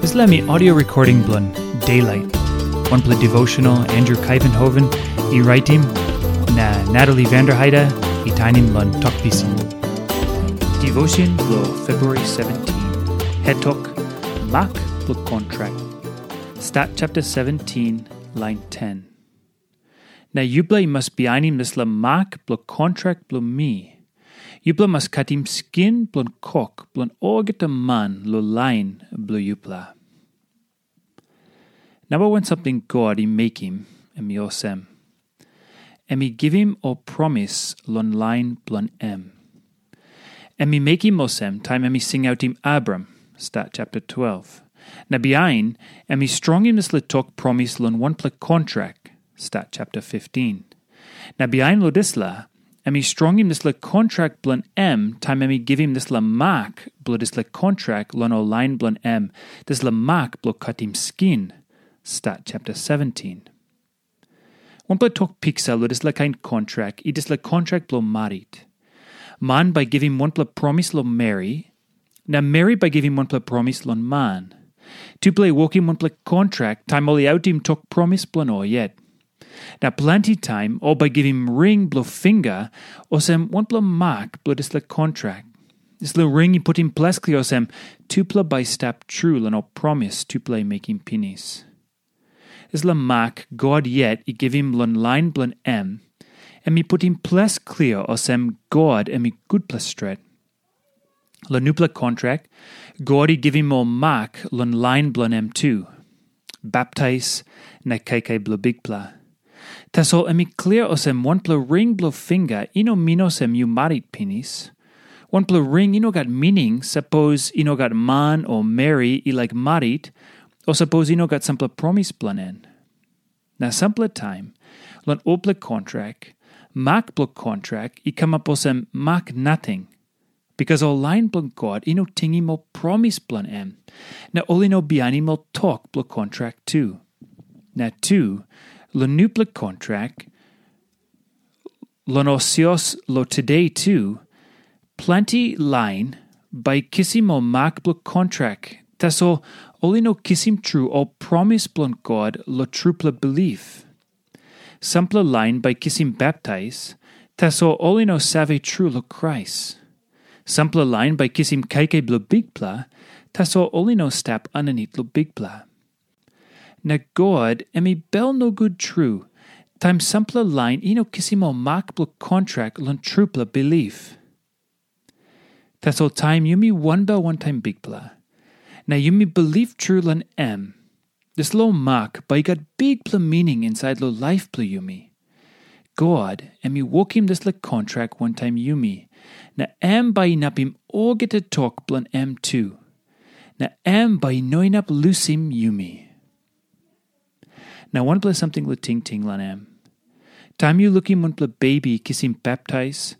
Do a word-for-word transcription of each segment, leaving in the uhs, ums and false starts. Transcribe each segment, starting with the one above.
Dispela mi audio recording bilong Daylight, wanpela devotional Andrew Kaivenhoven i raitim, na Natalie Vanderheide i tainim long Tok Pisin. Devotion bilong February seventeen. Het tok, Mak bilong kontrak. Stat chapter seventeen, line ten. Na yupela i mas bihainim dispela mak bilong kontrak bilong mi. Yupela mas katim skin bilong kok bilong olgeta man long lain bilong yupela. Namba wan samting God i mekim, em i olsem. Em i givim ol promis long lain bilong em. Em i mekim olsem taim em i singautim Abram, Stat chapter twelve. Na bihain, em i strongim dispela tok promis long wanpela kontrak, Stat chapter fifteen. Na bihain long dispela, em i strongim dispela kontrak bilong em taim em i givim dispela mak bilong dispela kontrak long ol lain bilong em, dispela mak bilong katim skin, Stat chapter seventeen. Wanpela tok piksa long dispela kain kontrak i dispela kontrak bilong marit. Man bai givim wanpela promis long meri, na meri bai givim wanpela promis long man. Tupela i wokim wanpela kontrak taim ol i autim tok promis bilong ol yet. Na planti taim ol bai givim ring bilong finga olsem wanpela mak bilong dispela kontrak. Dispela ring i putim ples klia olsem tupela bai i stap tru long ol promis tupela i mekim pinis. Dispela mak God yet i givim long lain bilong em, em i putim ples klia olsem God em i gutpela stret. Long nupela kontrak, God i givim ol mak long lain bilong em tu, baptais na kaikai bilong Bikpela. Tasol em i klia olsem wanpela ring bilong finga i no min olsem yu marit pinis. Wanpela ring i no gat mining sapos i no gat man o meri i laik marit, o sapos i no gat sampela promis bilong en. Na sampela taim, long olpela kontrak, mak bilong kontrak i kamap olsem mak nating, bikas ol lain bilong God i no tingim ol promis bilong em, na ol i no bihainim ol tok bilong kontrak tu. Na tu, long nupela kontrak, long ol sios long tude tu, planti lain bai kisim ol mak bilong kontrak, tasol ol i no kisim tru ol promis bilong God long trupela bilip. Sampela lain bai kisim baptais, tasol ol i no save tru long Krais. Sampela lain bai kisim kaikai bilong Bikpela, tasol ol i no stap aninit long Bikpela. Na God em i bel nogut tru, taim sampela lain i no kisim ol mak bilong kontrak long trupela bilip. Tasol taim yumi wanbel wantaim Bikpela, na yumi bilip tru long em, dispela ol mak bai i gat bikpela mining insait long laip bilong yumi. God em i wokim dispela kontrak wantaim yumi, na em bai inapim olgeta tok bilong em tu. Na em bai i no inap lusim yumi. Na wanpela samting long tingting long em. Taim yu lukim wanpela bebi kisim baptais,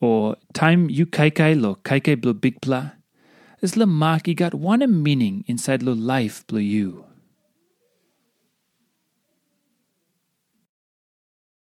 o taim yu kaikai long kaikai bilong Bikpela, dispela mak i gat wanem mining insait long laip bilong yu?